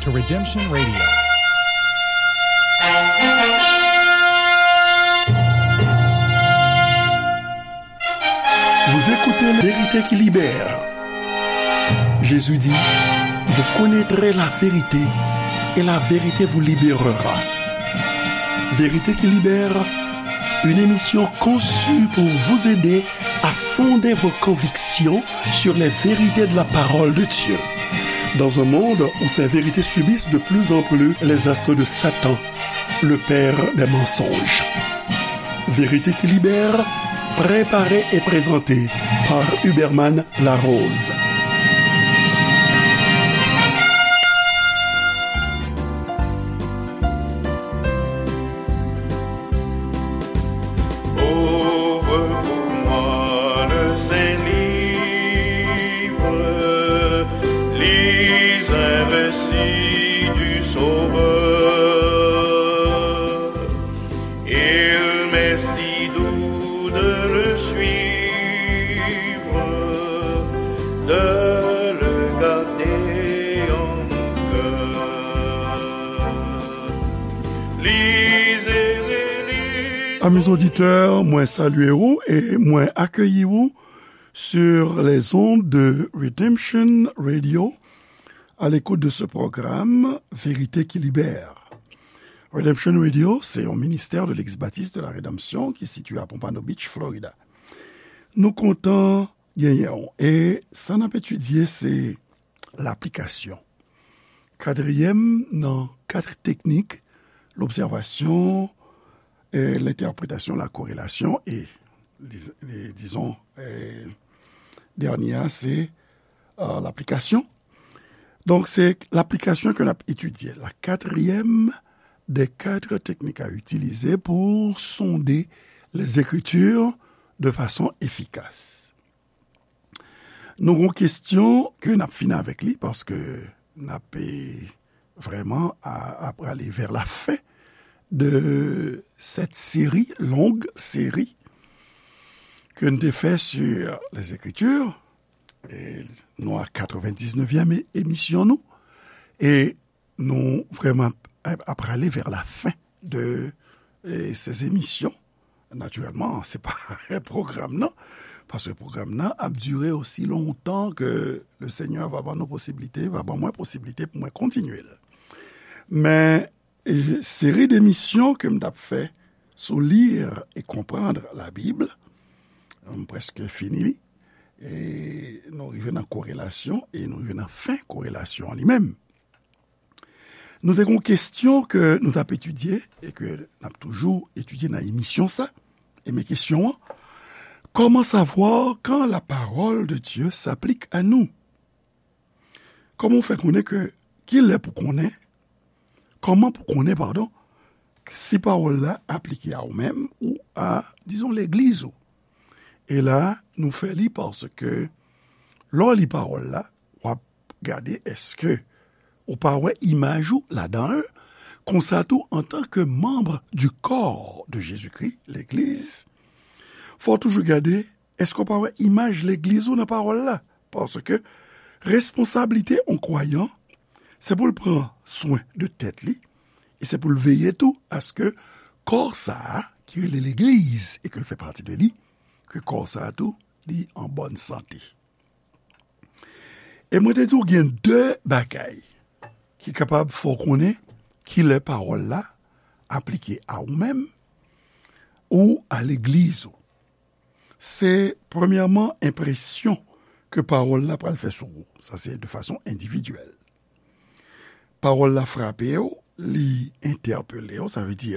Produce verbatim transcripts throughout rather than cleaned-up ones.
Redemption Radio. Vous écoutez La Vérité qui libère. Jésus dit, vous connaîtrez la vérité et la vérité vous libérera. Vérité qui libère, une émission conçue pour vous aider à fonder vos convictions sur les vérités de la parole de Dieu. Dans un monde où ces vérités subissent de plus en plus les assauts de Satan, le père des mensonges. Vérité qui libère, préparée et présentée par Huberman Larose. Ouvre pour moi le saint livre, lis un récit du Sauveur. Il m'est si doux de le suivre, de le garder en mon cœur. Lisez, relisez. Amis auditeurs, mwen salye ou e mwen akeyi ou sur les ondes de Redemption Radio, à l'écoute de ce programme Vérité qui libère. Redemption Radio, se yon ministè de Legliz Batis de la Redanmsyon ki sitiye a Pompano Beach, Florida. Nou kontan genyen w. E sa n ap etidye, se laplikasyon. Katriyèm nan kat teknik, lobsèvasyon, e lentèpretasyon, la korelasyon, e, diz-, e, dizon, e, dènye a, se, e, laplikasyon. Donk, se laplikasyon ke n ap etidye. La quatrième des quatre techniques à utiliser pour sonder les Écritures de façon efficace. Nou gon kesyon ke n ap fini avèk li, paske n ap, e, vrèman a, a prale vers la fin de cette série, longue série, ke n te fè sur les Écritures. E nou a katrevendiznevyèm e-, emisyon nou. E nou vrèman ap, ap prale vers la fin de, e, ces émissions. Natirèlman, se pa pwogram nan, paske pwogram nan ap dire osi lontan ke le Senyè va ban nou posiblite, va ban mwen posiblite pou mwen kontinye l. Men, e, seri demisyon ke m t ap fè sou Lire et comprendre la Bible, m prèske fini li. E nou rive nan korelasyon, e nou rive nan fen korelasyon an li menm. Nou te gon kesyon ke nou t ap etidye e ke n ap toujou etidye nan emisyon sa. E men kesyon an, comment savoir quand la parole de Dieu s'applique à nous? Kòman w fè konnen ke, kilè pou konnen, kòman pou konnen, padon, si pawòl la aplike a ou menm ou a, dizon, legliz ou? E la, nou fè li paske lè w li pawòl la, w ap gade èske ou pa wè imaj ou ladan l. Konsa tou, antanke manm du corps de Jésus-Christ, legliz, fò w toujou gade èske w pa wè imaj legliz ou nan pawòl la. Paske responsablite yon kwayan, se pou l pran swen de tèt li, e se pou l veye tou aske kò sa a, ki rele legliz e ke l fè pati de li, ke kò sa a tou, li an bòn sante. E mwen te di w gen de bagay ki kapab fè w konnen kilè pawòl la aplike a ou menm ou a legliz ou. Se, premyèman, enpresyon ke pawòl la pral fè sou ou. Sa se de fason endividyèl. Pawòl la frape w, li entèpele w, sa vle di,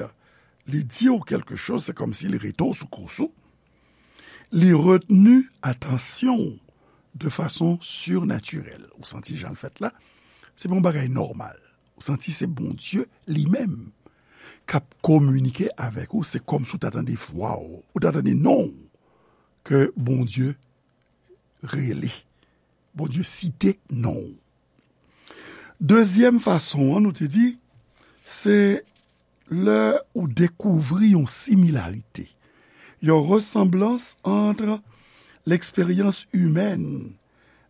li di w kèlke choz, se kòmsi li rete w sou kous ou. Li retni atansyon w de fason sirnatirèl. Ou santi jan l fèt la, se pa yon bagay nòmal. Ou santi se Bondye li menm k ap kominike avèk ou, se kòmsi w ta tande vwa w, ou ta tande non w, ke Bondye rele. Bondye site non w. Dezyèm fason an, nou te di, se lè ou dekouvri yon similarite, yon resanblans ant l'expérience humaine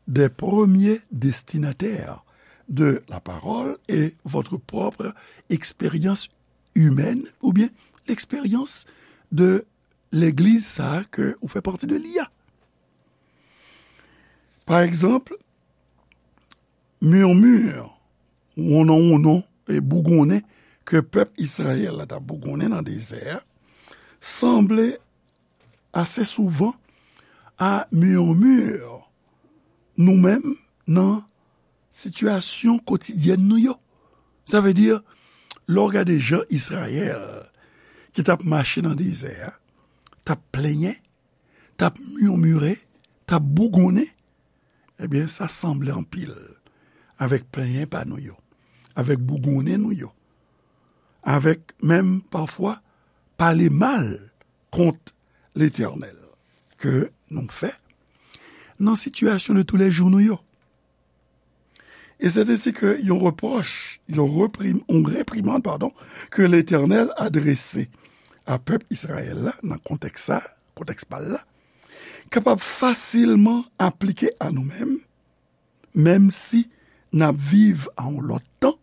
des premiers destinataires de la parole et votre propre expérience humaine, oubyen eksperyans de legliz sa a ke ou fè pati de li a. Pa egzanp, murmure, wonnon wonnon e bougonnen ke pèp Izrayèl la t ap bougonnen nan dezè a, sanble ase souvan a murmure nou menm nan sitiyasyon kotidyèn nou yo. Sa vle di, lè w gade jan Izrayèl ki t ap mache nan dezè a, t ap plenyen, t ap murmure, t ap bougonnen, ebyen, sa sanble anpil avèk plenyen pa nou yo, avèk bougonnen nou yo, avèk menm pafwa pale mal kont Letènèl ke nou fè nan sitiyasyon de toulèjou nou yo. E se ensi ke yon repwòch, yon reprim-, yon reprimann, padon, ke Letènèl adrese a pèp Izrayèl la, nan kontèks sa, kontèks pa l la, kapab fasilman aplike a nou menm, menm si n ap viv a yon lòt tan,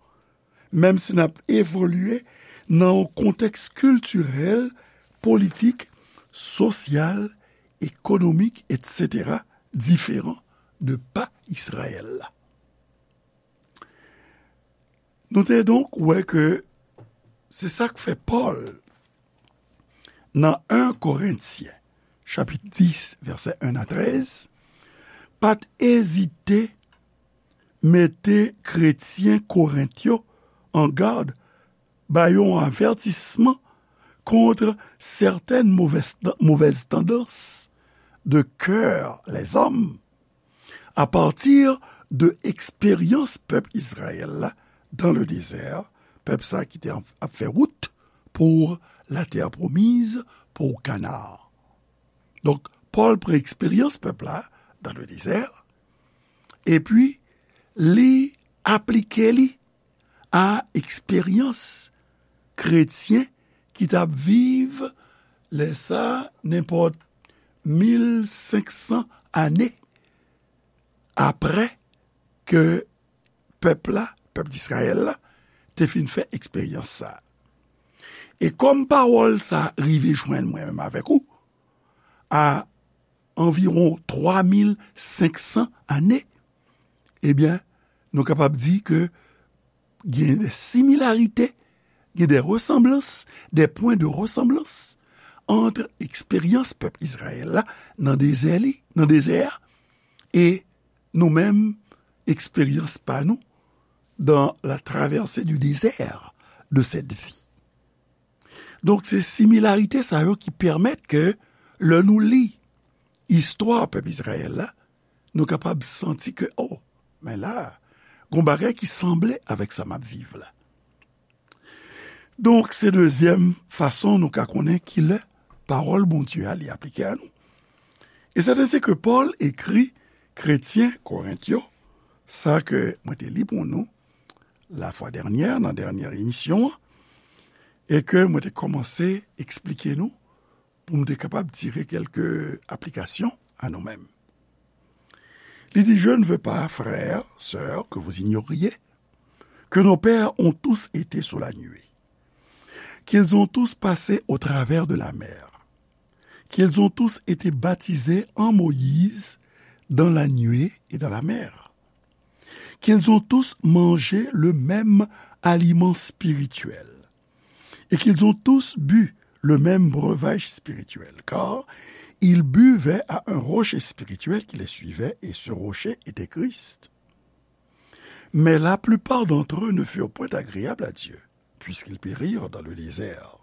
menm si n ap evolye nan yon kontèks kiltirèl, politik, sosyal, ekonomik, etsetera, diferan de pa Izrayèl la. Nou te donk wè ke se sa k fè Pòl, nan en Korentyen, chapit dis, vèsè en a trèz, pa t ezite mete kretyen Korent yo an gad, ba yo yon avètisman kont sètèn movèz, movèz tandans de kè lèzòm, apati de eksperyans pèp Izrayèl la dan le dezè, pèp sa ki te ap fè wout pou latè pwomiz, pou Kana. Donk, Pòl pran eksperyans pèp la dan le dezè, epi li aplike li a eksperyans kretyen ki t ap viv lè sa nenpòt mil senk san ane apre ke pèp la, pèp Izrayèl la, te fin fè eksperyans sa a. E kòm pawòl sa a rive jwenn mwen menm avèk ou, a anviwon twa mil senk san ane, ebyen, nou kapab di ke gen de similarite, gen de resanblans, de pwen de resanblans ant eksperyans pèp Izrayèl la nan dezè li, nan dezè a, e nou menm, eksperyans pa nou dans la traversée du désert de cette vie. Donk, se similarite sa yo ki pèmèt ke lè nou li istwa pèp Izrayèl la, nou kapab santi ke, o, men la, gon bagay ki sanble avèk sa m ap viv la. Donk, se dezyèm fason nou ka konnen kilè pawòl Bondye a li aplike a nou. E se ensi ke Pòl ekri kretyen Korent yo, sa ke mwen te li pou nou la fwa dènyè, nan dènyè emisyon an, e ke mwen te kòmanse eksplike nou pou m te kapab tire kèlke aplikasyon a nou menm. Li di, je ne veux pas, frères, sœurs, que vous ignoriez que nos pères ont tous été sous la nuée, qu'ils ont tous passé au travers de la mer, qu'ils ont tous été baptisés en Moïse dans la nuée et dans la mer, qu'ils ont tous mangé le même aliment spirituel, et qu'ils ont tous bu le même breuvage spirituel, car ils buvaient à un rocher spirituel qui les suivait, et ce rocher était Christ. Mais la plupart d'entre eux ne furent point agréables à Dieu, puisqu'ils périrent dans le désert.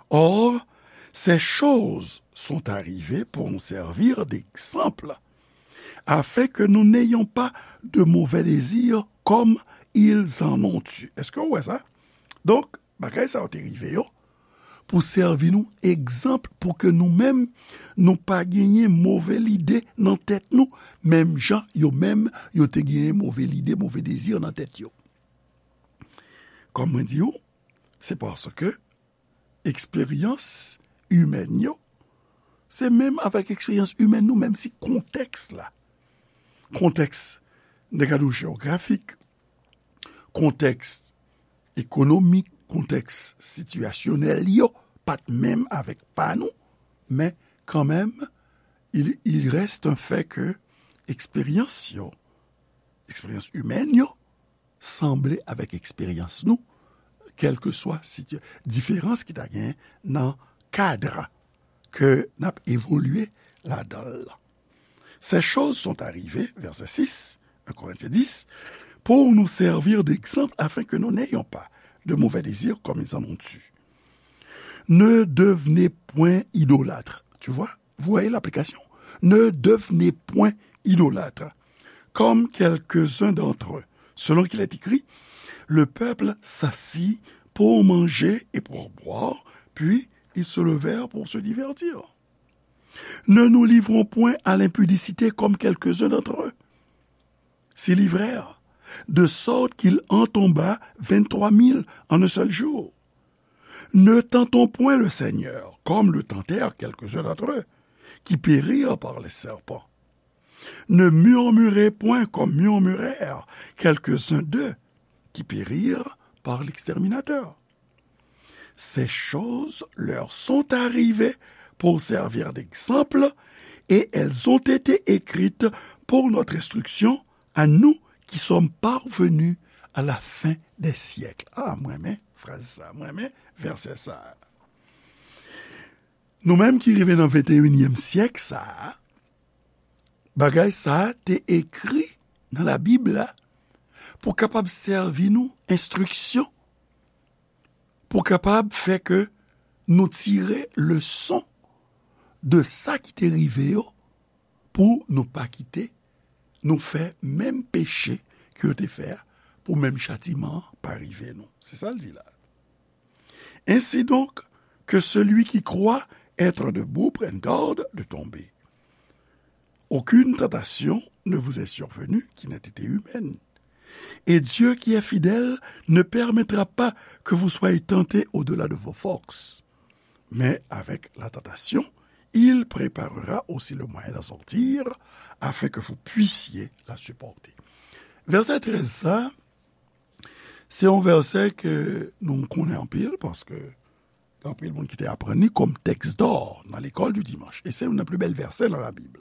Or, ces choses sont arrivées pour nous servir d'exemple, afin que nous n'ayons pas de mauvais désirs comme ils en ont eu. Èske w wè sa? Donk, bagay sa yo te rive yo pou sèvi nou egzanp, pou ke nou menm, nou pa genyen move lide nan tèt nou, menm jan yo menm, yo te genyen move lide, move dezi nan tèt yo. Kòm mwen di w, se paske eksperyans imèn yo, se menm avèk eksperyans imèn nou, menm si kontèks la, kontèks, n te ka di w, jewografik, kontèks ekonomik, kontèks sitiyasyonèl yo pa t menm avèk pa nou, men kanmenm, il, il reste un fait ke eksperyans yo, eksperyans imèn yo, sanble avèk eksperyans nou, kèlkeswa situ-, diferans ki ta genyen nan kad ke n ap evolye ladan l lan. Ces choses sont arrivées, verset six, un Corinthiens dix, pour nous servir d'exemple afin que nous n'ayons pas de mauvais désirs comme ils en ont eu. Ne devenez point idolâtres. Tu vois? Vous voyez l'application? Ne devenez point idolâtres, comme quelques-uns d'entre eux, selon qu'il est écrit, le peuple s'assit pour manger et pour boire, puis ils se levèrent pour se divertir. Ne nous livrons point à l'impudicité comme quelques-uns d'entre eux s'y livrèrent, de sorte qu'il en tomba vingt-trois mille en un seul jour. Ne tentons point le Seigneur, comme le tentèrent quelques-uns d'entre eux, qui périrent par les serpents. Ne murmurez point comme murmurèrent quelques-uns d'eux, qui périrent par l'exterminateur. Ces choses leur sont arrivées pour servir d'exemple, et elles ont été écrites pour notre instruction, à nous qui sommes parvenus à la fin des siècles. Ah, mwen renmen fraz sa, mwen renmen vèsè sa. Nou menm ki rive nan venteyinyèm syèk sa a, bagay sa a te ekri nan Labib la pou kapab sèvi nou enstriksyon, pou kapab fè ke nou tire leson de sa ki te rive yo, pou nou pa kite nou fè menm peche ke yo te fè a, pou menm chatiman an pa rive nou. Se sa l di la. Ainsi donc, que celui qui croit être debout prenne garde de tomber. Aucune tentation ne vous est survenue qui n'ait été humaine. Et Dieu qui est fidèle ne permettra pas que vous soyez tentés au-delà de vos forces. Mais avec la tentation, il préparera aussi le moyen d'en sortir, afin que vous puissiez la supporter. Vèsè trèz sa, se yon vèsè ke nou konnen anpil, paske gen anpil moun ki te aprann li kòm tèks dò nan lekòl di dimanch. E se youn nan pli bèl vèsè nan Labib.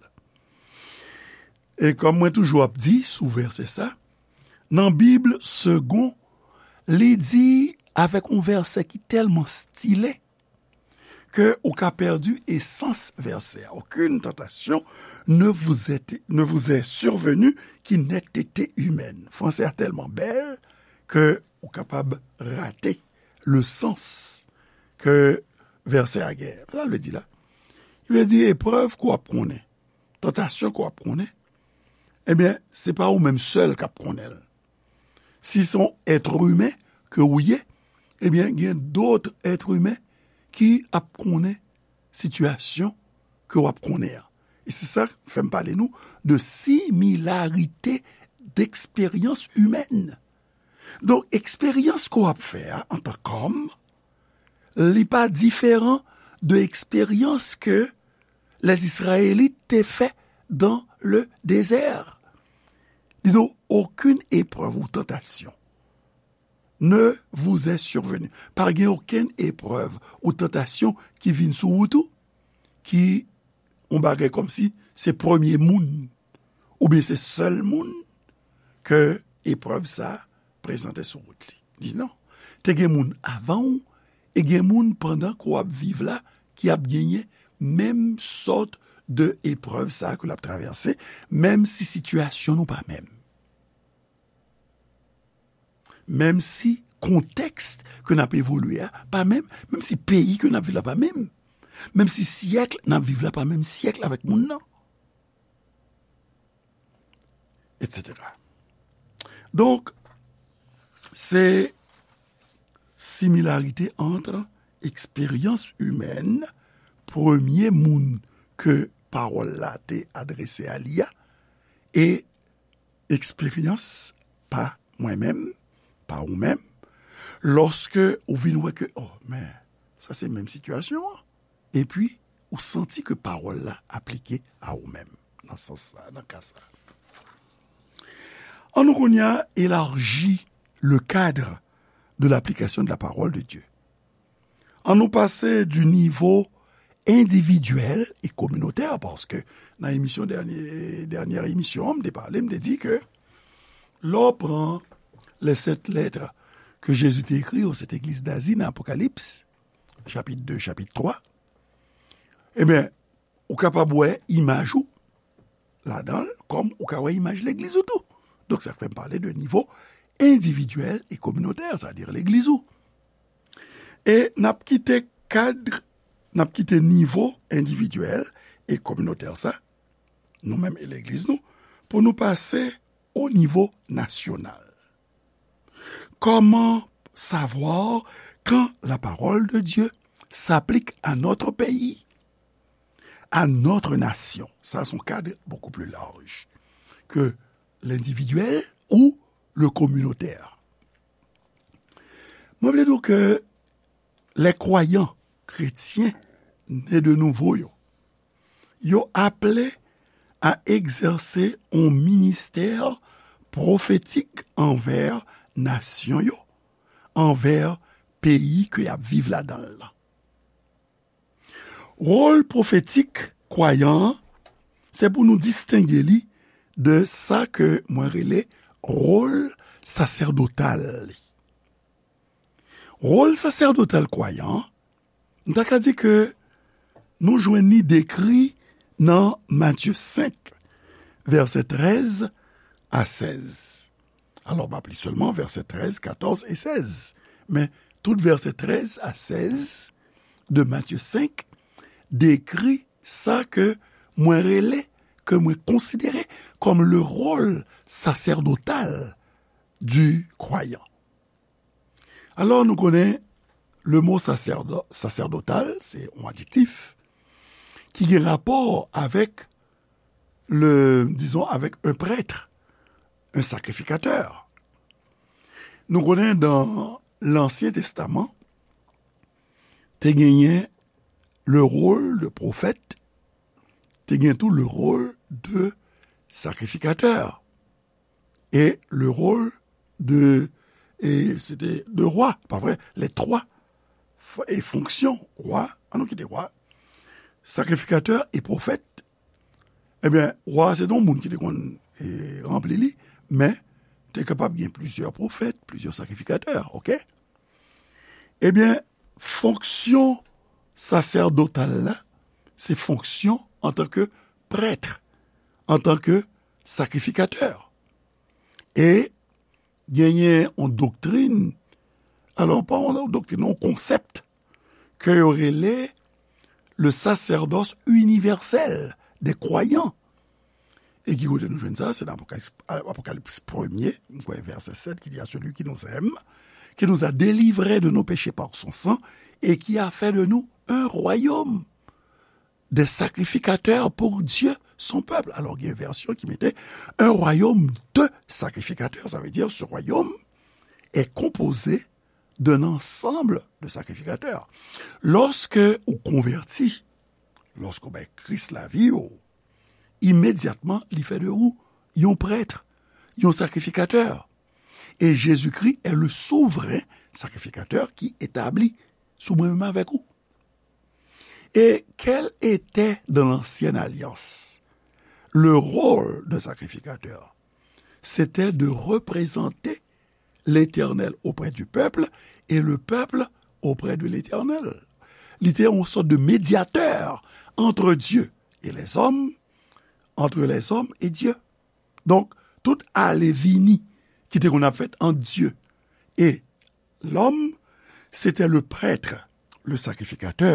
E kòm mwen toujou ap di sou vèsè sa, nan Bib Segond, li di avèk yon vèsè ki tèlman stile ke ou ka pèdi esans vèsè a. Aucune tentation ne vous est, ne vous est survenue qui n'ait été humaine. Fransè a tèlman bèl ke ou kapab rate le sans ke vèsè a genyen. Sa l vle di la? Li vle di eprèv ke w ap konnen, tantasyon ke w ap konnen, ebyen, se pa ou menm sèl k ap konnen l. Si se yon èt imen ke ou ye, ebyen, gen dòt èt imen ki ap konnen sitiyasyon ke w ap konnen an. E se sa k fè m pale nou de similarite d'eksperyans imèn. Donk, eksperyans ke w ap fè a antan kòm, li pa diferan de eksperyans ke les Israélites te fè dans le désert. Dis donc, aucune épreuve ou tentation ne vous est survenue. Pa gen okenn eprèv ou tantasyon ki vin sou wout ou, ki yon bagay kòmsi se premye moun, oubyen se sèl moun ke eprèv sa a prezante sou wout li. Li di non. Te gen moun avan w, e gen moun pandan ke w ap viv la, ki ap genyen menm sòt de eprèv sa a ke l ap travèse, menm si sitiyasyon nou pa menm. Menm si kontèks ke n ap evolye a pa menm, menm si peyi ke n ap viv la pa menm, menm si syèk n ap viv la pa menm syèk avèk moun nan, etsetera. Donk, se similarite ant eksperyans imèn, premye moun ke pawòl la te adrese a li a, e eksperyans pa mwen menm, pa ou menm, lòske ou vin wè ke, oh, men, sa se menm sitiyasyon an. Epi, ou santi ke pawòl la aplike a ou menm, nan sans sa, nan ka sa. An nou kounye a elaji le cadre de l'application de la parole de Dieu. An nou pase du niveau individuel et communautaire, paske nan emisyon dènye, dènye emisyon, m te pale, m te di ke lè w pran les sept lettres que Jésus te écrit aux sept églises d'Asie nan Apokalips, chapit de, chapit twa, ebyen, ou kapab wè imaj ou ladan l, kòm ou ka wè imaj legliz ou tou. Donk, sa fè m pale de nivo endividyèl e kominotè, sa di legliz ou. E n ap kite kad, n ap kite nivo endividyèl e kominotè sa, nou menm e legliz nou, pou nou pase o nivo nasyonal. Comment savoir quand la parole de Dieu s'applique à notre pays, à notre nation? Ça, c'est un cadre beaucoup plus large que l'individuel ou le communautaire. Mwen vle di w ke lè kwayan kretyen ne de nouvo yo, yo aple a egzèse yon ministè pwofetik anvè nasyon yo, anvè peyi ke y ap viv ladan l lan. Wòl pwofetik kwayan an, se pou nou distenge li de sa ke mwen rele wòl sasèdotal li. Wòl sasèdotal kwayan an, m ta ka di ke nou jwenn li dekri nan Matye senk, vèsè trèz a sèz. Alò, m ap li sèlman vèsè trèz, katòz e sèz. Men, tout vèsè trèz a sèz de Matye senk dekri sa ke mwen rele, ke mwen konsidere kòm le rôle sacerdotal du croyant. Alò, nou konnen le mo sasèdo-, sasèdotal, se yon adjektif ki gen rapò avèk le, disons, avec un prêtre, un sacrificateur. Nou konnen dan Lansyen Testaman, te genyen le rôle de prophète, te gen tou le rôle de sacrificateur et le rôle de, et c'était de roi, pa vre, les trois f-, et fonctions, roi, an nou kite roi, sacrificateur et prophète. Ebyen, wa a se te yon moun ki te konn, e, ranpli li, men te kapab gen plizyè pwofèt, plizyè sakrifikatè, oke? Ebyen, fonksyon sasèdotal la, se fonksyon antanke prèt, antanke sakrifikatè. E genyen yon doktrin, alò, pa yon doktrin, yon konsèp ke yo rele le sacerdoce universel des croyants. E ki kote nou jwenn sa? Se nan Apokalips, Apokalips premye, m kwè vèsè sèt, ki di, à celui qui nous aime, qui nous a délivrés de nos péchés par son sang, et qui a fait de nous un royaume des sacrificateurs pour Dieu, son peuple. Alò, gen vèsyon ki mete un royaume de sacrificateurs, sa vle di ce royaume est composé d'un ensemble de sacrificateurs. Lòske ou konvèti, lòske ou bay Kris lavi w, imedyatman, li fè de ou yon prèt, yon sakrifikatè. E Jezikri est le souverain sacrificateur ki etabli sou mwen menm avèk ou. Et quel était dans l'ancienne alliance le rôle d'un sacrificateur? C'était de représenter l'Éternel auprès du peuple et le peuple auprès de l'Éternel. Li te yon sòt de médiateur entre Dieu et les hommes, entre les hommes et Dieu. Donk, tout ale vini ki te konn ap fèt ant Dye e lòm, se te le prèt, le sakrifikatè,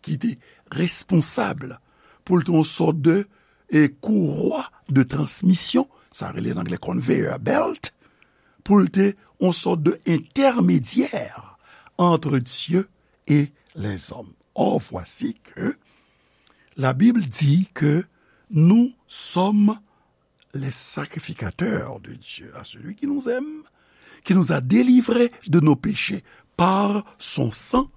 ki te responsab pou l te yon sòt de, e, kourwa de transmisyon, sa rele nan anglè conveyor belt, pou l te yon sòt de entèmedyè entre Dieu et les hommes. Or, voici que la Bible dit que nous sommes les sacrificateurs de Dieu, à celui qui nous aime, qui nous a délivrés de nos péchés par son sang,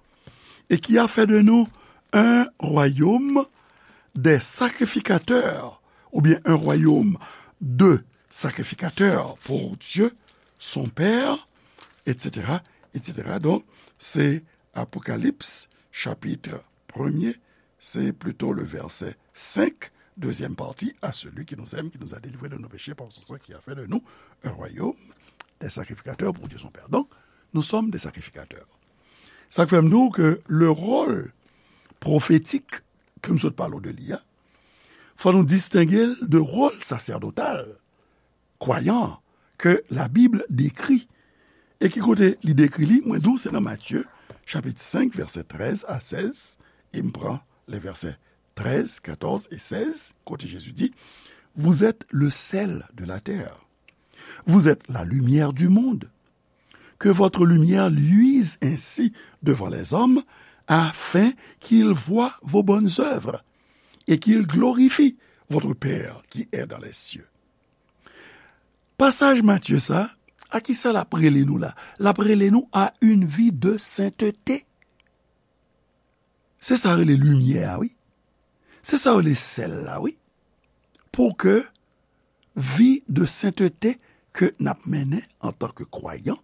et qui a fait de nous un royaume des sacrificateurs, ou bien un royaume de sacrificateurs pour Dieu, son père, et cetera, et cetera. Donk, se Apokalips, chapit premye, se plito le vèsè senk, deuxième partie, à celui qui nous aime, qui nous a délivrés de nos péchés par son sang, qui a fait de nous un royaume, des sacrificateurs pour Dieu son Père. Donc, nous sommes des sacrificateurs. Sa k fè m di w ke le rôle prophétique ke m sot pale w de li a, fò nou distenge l de wòl sasèdotal kwayan ke Labib dekri. E ki kote li dekri li? Mwen di w se nan Matye, chapit senk, vèsè trèz a sèz, e m pran le vèsè trèz, katòz e sèz, kote Jezi di, Vous êtes le sel de la terre. Vous êtes la lumière du monde. Que votre lumière luise ainsi devant les hommes, afin qu'ils voient vos bonnes œuvres et qu'ils glorifient votre Père qui est dans les cieux. Pasaj Matye sa, a ki sa l ap rele nou la? L ap rele nou à une vie de sainteté. Se sa rele limyè a, wi. Se sa rele sèl la, wi. Pou ke vi de sentete ke n ap mennen antanke kwayan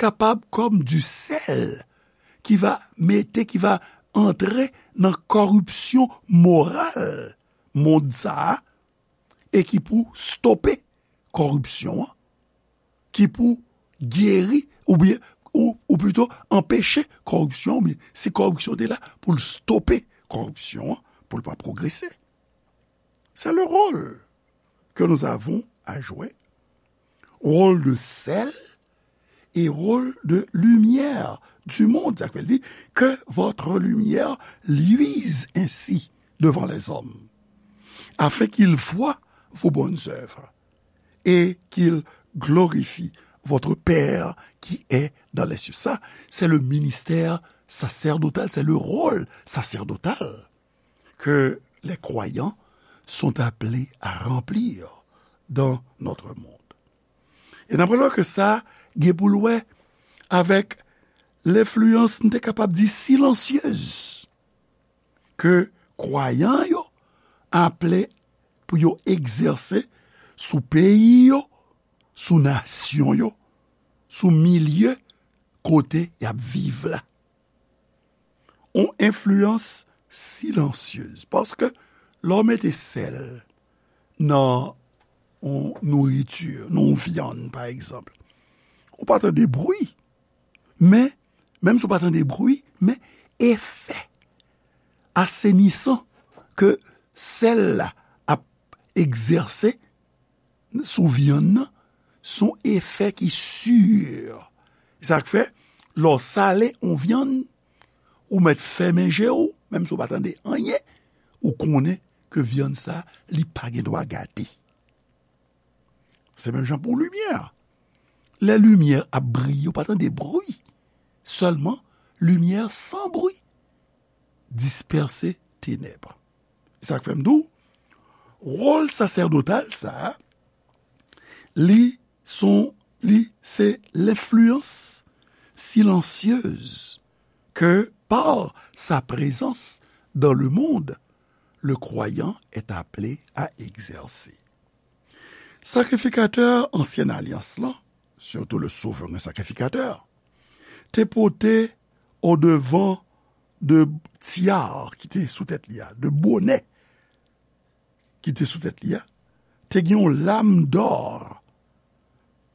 kapab kòm du sèl ki va mete, ki va antre nan kòripsyon moral mond sa a, e ki pou stope kòripsyon an, ki pou geri, oubyen, ou, ou plito anpeche kòripsyon, oubyen si kòripsyon te la, pou l stope kòripsyon an, pou l pa pwogrese. C'est le rôle que nous avons à jouer. Rôle de sel et rôle de lumière du monde. Sa vle di, que votre lumière luise ainsi devant les hommes, afin qu'ils voient vos bonnes œuvres et qu'ils glorifient votre Père qui est dans les cieux. Ça, c'est le ministère sacerdotal, c'est le rôle sacerdotal que les croyants sont appelés à remplir dans notre monde. E n ap wè ke sa gen pou l wè avèk lenfliyans, n te kapab di silansyez, ke kwayan yo aple pou yo egzèse sou peyi yo, sou nasyon yo, sou milye kote y ap viv la. On enfliyans silansyez. Paske lè w mete sèl nan on nouriti, nan on vyann, pa egzanp, ou pa tande bri. Men, menm si w pa tande bri, men efè asenisan ke sèl la ap egzèse sou vyann nan, se yon efè ki si. Sa k fè, lè w sale yon vyann, ou mèt fèmen je w, menm si w pa tande anyen, ou konnen ke vyann sa, li pa gen dwa gate. Se menm jan pou limyè. Lè limyè ap briye, ou pa tande bri. Sèlman, limyè san bri dispèse tenèb. Sa k fè m di w, wòl sasèdotal sa a, li son, li se lenfliyans silansyez que par sa présence dans le monde, le croyant est appelé à exercer. Sakrifikatè ansyen alyans lan, surtout le souverain sacrificateur, te pote odevan de tyar ki te sou tèt li a, de bonè ki te sou tèt li a, te gen yon lam dò,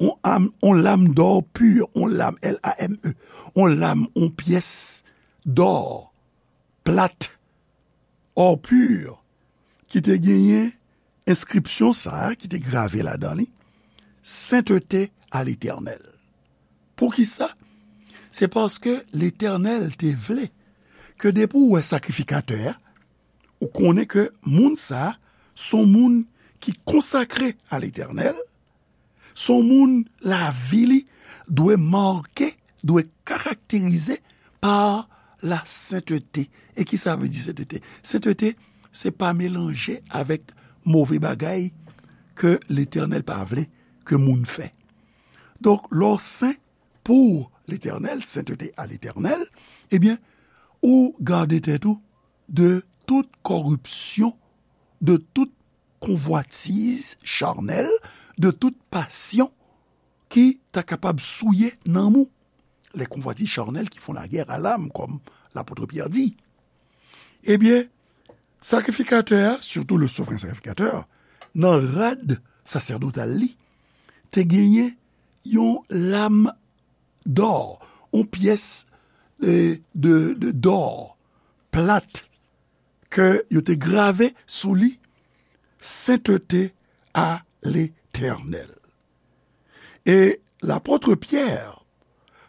yon, am, yon lam dò pi, yon lam, L A M E, yon lam, yon pyès dò plat, or pur, ki te genyen enskripsyon sa a ki te grave ladan li, Sainteté à l'Éternel. Poukisa? Se paske Letènèl te vle ke depi w wè sakrifikatè a, ou konnen ke moun sa a se yon moun ki konsakre a Letènèl, se yon moun lavi li dwe make, dwe karakterize pa la sentete. E ki sa vle di sentete? Sentete, se pa melanje avèk move bagay ke Letènèl pa vle ke moun fè. Donk, lè w sen pou Letènèl, sainteté à l'Éternel, ebyen, ou gade tèt ou de tout kòripsyon, de tout konvwatiz chanèl, de tout pasyon ki ta kapab souye nanm ou, les convoitises charnelles qui font la guerre à l'âme, comme l'apôtre Pierre dit. Ebyen, sakrifikatè a, surtout le souverain sacrificateur, nan rad sasèdotal li, te genyen yon lam dò, yon pyès de, de, de dò plat ke yo te grave sou li, Sainteté à l'Éternel. E lapot Pyè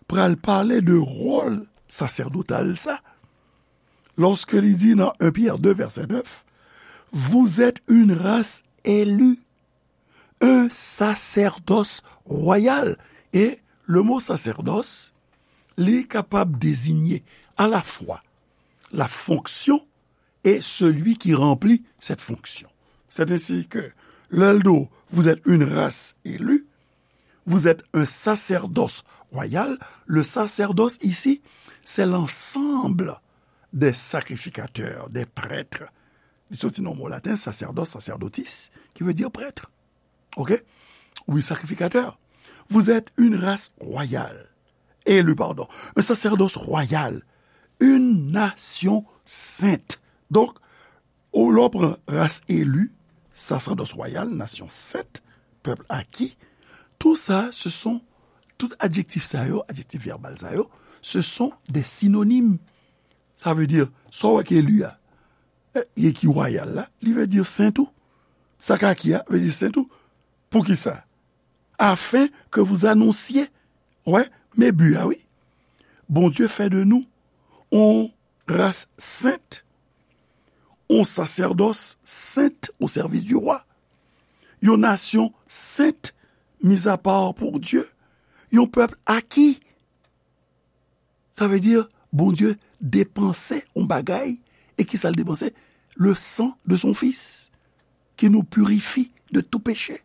pral pale de wòl sasèdotal sa, lòske li di nan en Pyè de vèsè nèf, vous êtes une race élue, un sacerdoce royal. E le mo sasèdòs, li kapab dezinye alafwa la fonksyon et celui qui remplit cette fonction. C'est ainsi que, lè l di w, vous êtes une race élue, vous êtes un sacerdoce royal. Le sacerdoce ici, c'est l'ensemble des sacrificateurs, des prêtres. Li soti nan mo laten, sacerdos, sacerdotis, qui veut dire prêtre. Ok? Oui, sacrificateur. Vous êtes une race royale. Élu, pardon. Un sacerdoce royal. Une nation sainte. Donk, ou lè w pran ras eli, sasèdòs wayal, nasyon sent, pèp aki, tou sa, se son, tout adjektif sa yo, adjektif vèbal sa yo, ce sont des synonymes. Sa vle di, sa w wè ki eli a, e, e ki wayal la, li vle di sen tou. Sa k aki a, vle di sen tou. Poukisa? Afin que vous annonciez. Wè, men bi a, wi. Bondye fè de nou yon ras sent, yon sasèdòs sent au service du roi, yon nasyon sent, mis à part pour Dieu, yon pèp aki. Sa vle di, Bondye depanse yon bagay, e ki sa l depanse? Le sang de son Fils, qui nous purifie de tout péché.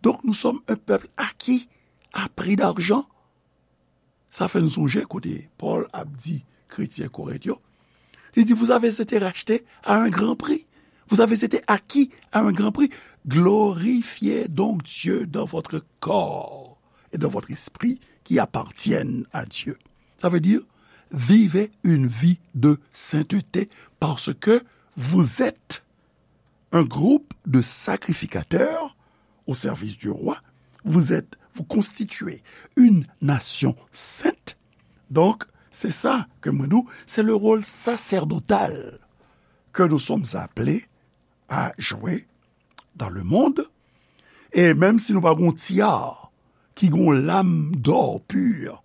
Donc, nous sommes un peuple acquis à prix d'argent. Sa fè n sonje kote Pòl ap di kretyen Korent yo. Li di, vous avez été rachetés à un grand prix. Vous avez été acquis à un grand prix. Glorifiez donc Dieu dans votre corps et dans votre esprit qui appartiennent à Dieu. Ça veut dire, vivez une vie de sainteté parce que vous êtes un groupe de sacrificateurs au service du roi. Vous êtes, vous constituez une nation sainte. Donc, c'est ça que mwen di w, c'est le rôle sacerdotal que nous sommes appelés à jouer dans le monde. E menm si nou pa gen yon tiyar ki gen yon lam dò pur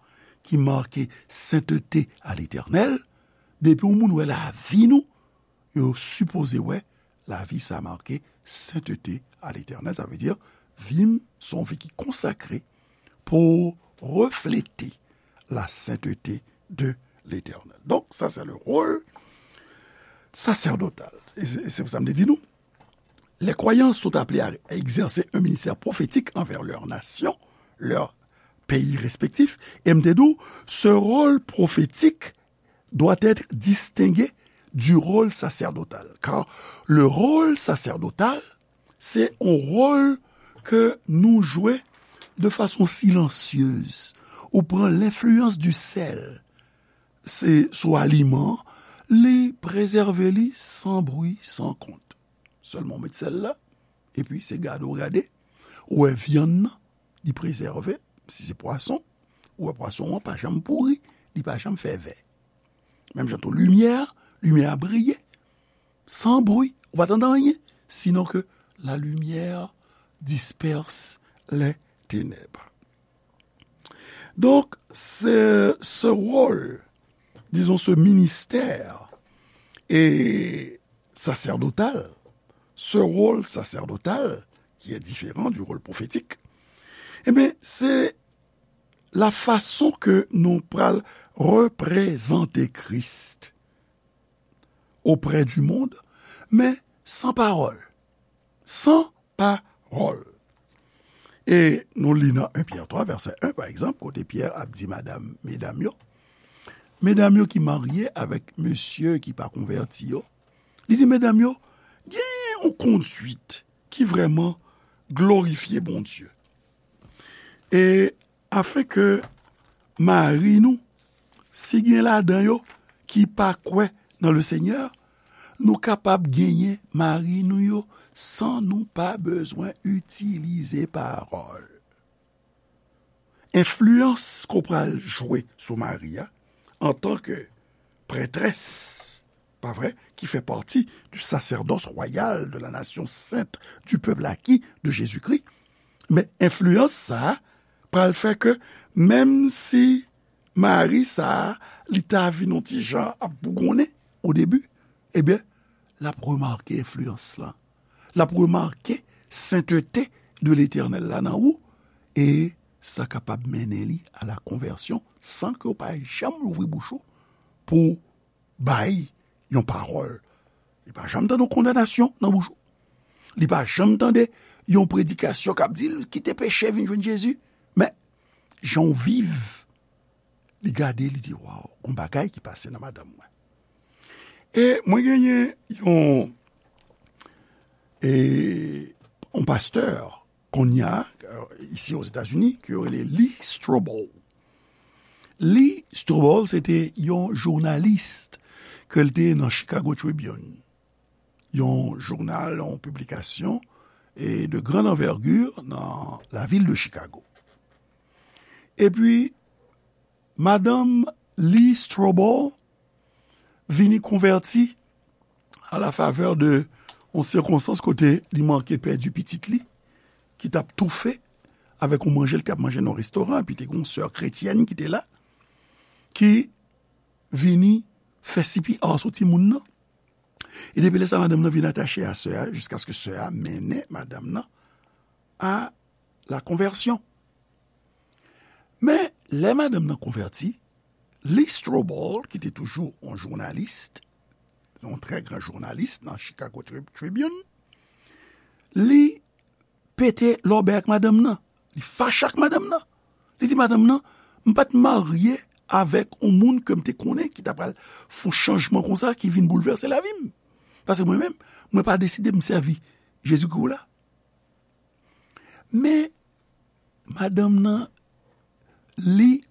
ki make sainteté à l'Éternel, depi yon moun wè lavi nou, yo sipoze wè lavi sa make sainteté à l'Éternel. Sa vle di, vi m se yon vi ki konsakre pou reflete la sainteté de l'Éternel. Donc, ça, c'est le rôle sacerdotal. Et c'est, c'est pour ça que je dis nous, les croyants sont appelés à exercer un ministère prophétique envers leur nation, leur pays respectif. Et m te di w, ce rôle prophétique doit être distingué du rôle sacerdotal. Car le rôle sacerdotal, se yon wòl ke nou jwe de fason silansyez. Ou pran lenfliyans di sèl, se sou aliman, li prezève li san bri, san kont. Sèlman w met sèl la, epi se gade w gade, ou wè vyann nan, li prezève, si se pwason, ou wè pwason an pa janm pouri, li pa janm fè vè. Menm jan tou limyè, limyè a briye, san bri, ou pa tande anyen, sinon que la lumière disperse les ténèbres. Donc, ce, ce rôle, disons, ce ministère est sacerdotal, ce rôle sacerdotal, qui est différent du rôle prophétique, eh bien, c'est la façon que nou pral reprezante Kris auprès du monde, men san pawòl. San pawòl. E nou li nan en Pyè twa, vèsè en, pa egzanp, kote Pyè ap di madam, medam yo, medam yo ki marye avèk mesye ki pa konvèti yo, li di medam yo, gen yon konduit ki vrèman glorifye Bondye. E afin ke mari nou, si gen ladan yo ki pa kwè nan le Seigneur, nou kapab genyen mari nou yo san nou pa bezwen itilize pawòl. Enfliyans ke w pral jwe sou mari a, antanke prètrès, pa vre, ki fè pati du sacerdoce royal de la nation sainte, du peuple acquis de Jésus-Christ. Men enfliyans sa a pral fè ke menm si mari sa a, li ta vin yon ti jan ap bougonnen o debi, ebyen, l ap remake enfliyans lan. L ap remake sentete de Letènèl la nan ou, e sa kapab mennen li a la konvèsyon san ke w pa janm louvri bouch ou pou bay yon pawòl. Li pa janm tande yon kondanasyon nan bouch ou. Li pa janm tande yon predikasyon k ap di l kite peche vin jwenn Jezi. Men, jan w viv, li gade, li di, "Waw, gon bagay ki pase nan madanm mwen." E mwen genyen yon, e, yon pastè, kounye a, euh, isi Ozetazini, ke yo rele Lee Strobel. Lee Strobel, se te yon jounalis ke l te nan Chicago Tribune. Yon jounal, yon piblikasyon, e de grande envergure nan lavil de Chicago. Epi, madanm Lee Strobel vini konvèti a la favè de yon sikonstans kote li manke pèdi pitit li, ki t ap toufe avèk yon manje l t ap manje nan yon restoran, epi te gen yon sè kretyèn ki te la, ki vini fè C P R sou timoun nan. E depi lè sa, madanm nan vin atache a sè a, jiskaske sè a mennen madanm nan a la konvèsyon. Men, lè madanm nan konvèti, Lee Strobel, ki te toujou yon jounalis, yon trè gran jounalis nan Chicago Tri-, Tribune, li pete lòbèy ak madanm nan. Li fache ak madanm nan. Li di madanm nan, "M pa t marye avèk yon moun ke m te konnen ki ta pral fè yon chanjman konsa ki vin boulvèse lavi m. Paske mwen menm, mwen pa deside m sèvi Jezikri w la." Men, madanm nan, li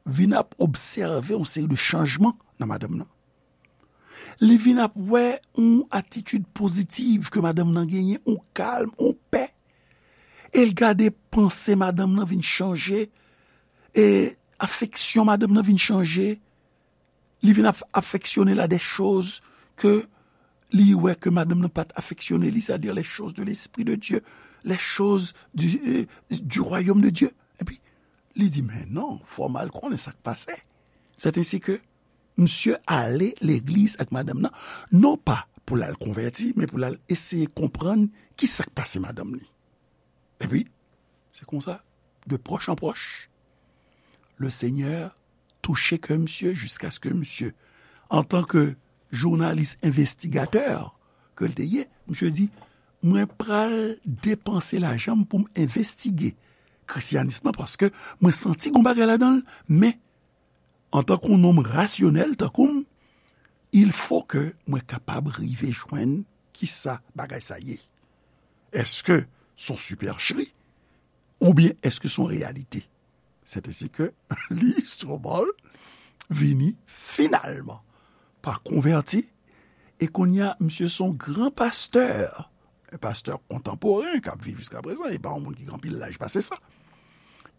vin ap obsève yon seri de chanjman nan madanm nan. Li vin ap wè yon atitid pozitiv ke madanm nan genyen, yon kalm, yon pè. E l gade panse madanm nan vin chanje, e afeksyon madanm nan vin chanje. Li vin ap afeksyone l a des choses que li wè ke madanm nan pa t afeksyone li, c'est-à-dire les choses de l'Esprit de Dieu, les choses du, euh, du royaume de Dieu. Epi, li di, "Men non, fò m al konnen sa k pase." C'est ainsi que misye ale legliz ak madanm nan, non pa pou l al konvèti, men pou l al eseye konprann ki sa k pase madanm li. Epi, se konsa, de proche en proche, le Seigneur touche kè misye jiskaske misye, antanke jounalis envestigatè ke l te ye, misye di, "Mwen pral depanse lajan m pou m envestige kristyanis lan, paske mwen santi gon bagay ladan l, men antanke yon nonm rasyonèl tankou m, il faut que mwen kapab rive jwenn ki sa bagay sa ye. Èske s on sipèchri oubyen èske s on reyalite?" C'est ainsi que Lee Strobel vini finalman pa konvèti, e kounye a, misye s on gran pastè, yon pastè kontanporen k ap viv jiska prezan, e pa yon moun ki gen anpil laj pase sa.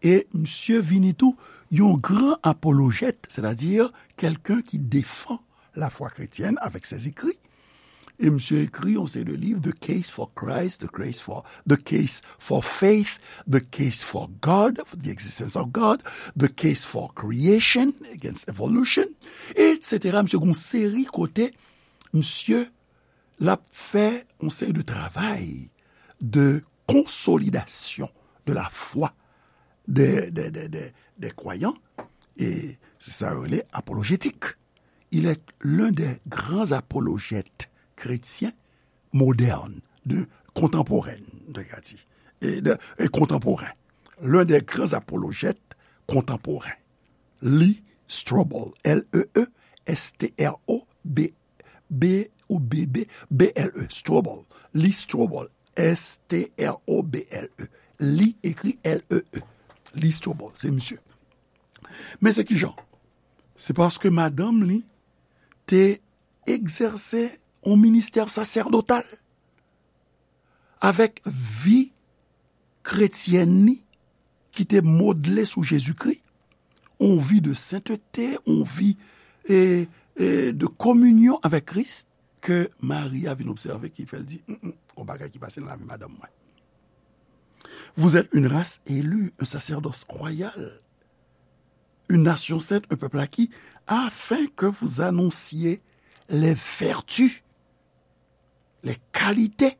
E misye vini tou yon gran apolojèt, c'est-à-dire quelqu'un qui défend la foi chrétienne avec ses écrits. E misye ekri yon seri de liv, The Case for Christ, The Case for, The Case for Faith, The Case for God, for the Existence of God, The Case for Creation Against Evolution, et cetera. Misye gen yon seri kote misye l ap fè yon seri de travay de konsolidasyon de la fwa de, de, de, de, de kwayan, e se sa yo rele apolojetik. Il est l'un des grands apologètes chrétiens modernes, de, contemporains, de, e de, e kontanporen. L'un des grands apologètes contemporains. Lee Strobel, L E E S T R O B, B ou B B, B L E, Strobel. Lee Strobel, S T R O B L E. Lee ekri L E E. Li Strobel, se misye. Men se kijan? Se paske madanm li te egzèse yon ministè sasèdotal avèk vi kretyèn li ki te modle sou Jezikri, yon vi de sentete, yon vi, e, e, de kominyon avèk Kris, ke Mari a vin obsève ki fè l di, "Mm, mm, gon bagay ki pase nan lavi madanm mwen." Vous êtes une race élue, un sacerdoce royal, une nation sainte, un peuple acquis, afin que vous annonciez les vertus, les qualités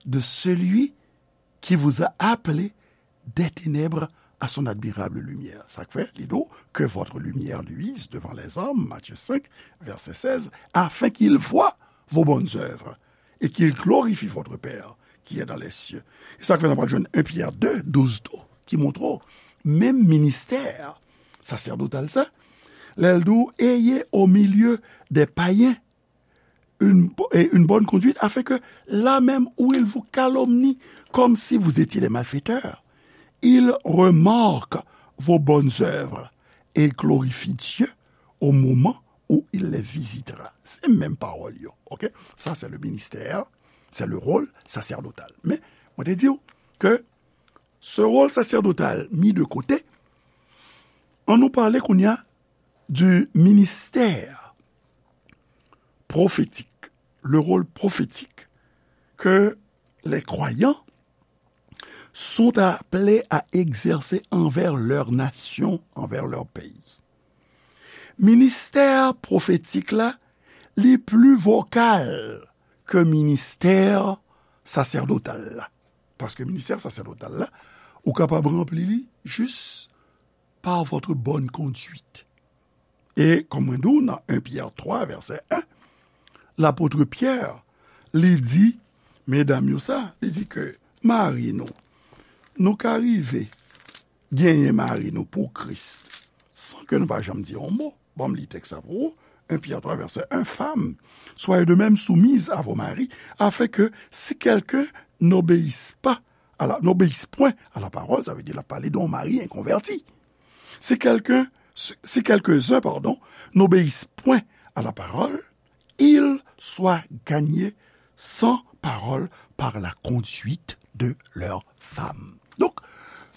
de celui qui vous a appelé des ténèbres à son admirable lumière. Sa k fè, li di w, que votre lumière luise devant les hommes, Matthieu cinq, verset seize, afin qu'ils voient vos bonnes œuvres et qu'ils glorifient votre Père qui est dans les cieux. E sa k fè n ap jwenn un Pyè de, douz tou, ki montre w, menm ministè sasèdotal sa, lè l di w, ayez au milieu des païens une, bo- et une bonne conduite, afin que là même où ils vous calomnient comme si vous étiez des malfaiteurs, ils remarquent vos bonnes œuvres et glorifient Dieu au moment où il les visitera. Se menm pawòl yo, ok? Sa, se le ministè, se le rôle sacerdotal. Men, mwen te di w ke ce rôle sacerdotal mis de côté, ann nou pale kounye a du ministère prophétique, le rôle prophétique que les croyants sont appelés à exercer envers leur nation, envers leur pays. Ministè pwofetik la, li pli vokal ke ministè sasèdotal la. Paske ministè sasèdotal la, ou kapab ranpli li jis par votre bonne conduite. E, kòm mwen di w nan un Pyè twa, vèsè en, lapot Pyè, li di, medam yo sa, li di ke mari nou, nou ka rive genyen mari nou pou Kris, san ke nou pa janm di yon mo. Ban m li tèks la pou ou. Un Pyè twa, vèsè en, Femmes, soyez de même soumises à vos maris, afin que si quelqu'un n'obéisse pas à la, n'obéisse point à la parole, sa vle di l ap pale de yon mari enkonvèti. Si quelqu'un, si, si quelques-uns, pardon, n'obéissent point à la parole, ils soient gagnés sans parole par la conduite de leurs femmes. Donk,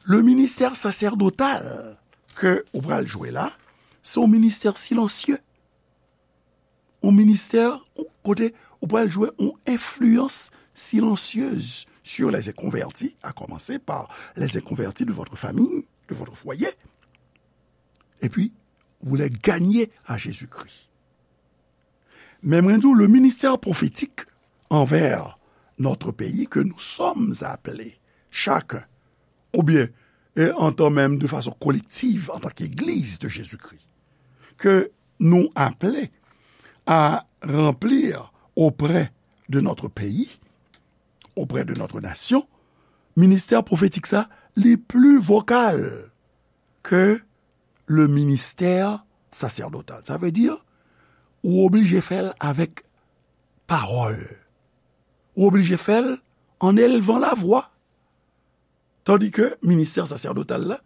le ministè sasèdotal ke ou pral jwe la, se yon ministè silansye. Yon ministè kote ou pral jwe yon enfliyans silansyez sur les inconvertis, à commencer par les inconvertis de votre famille, de votre foyer. Et puis, vous les gagnez à Jésus-Christ. Men mwen di w, le ministère prophétique envers notre pays que nous sommes appelés, chacun, oubyen, e, en tant même de façon collective, en tant qu'Église de Jésus-Christ, que nous appelés à remplir auprès de notre pays, auprès de notre nation, ministè pwofetik sa, li pli vokal ke le ministè sasèdotal. Sa vle di, ou oblije fè l avèk pawòl. Ou oblije fè l an elvan lavwa. Tandis que ministè sasèdotal la,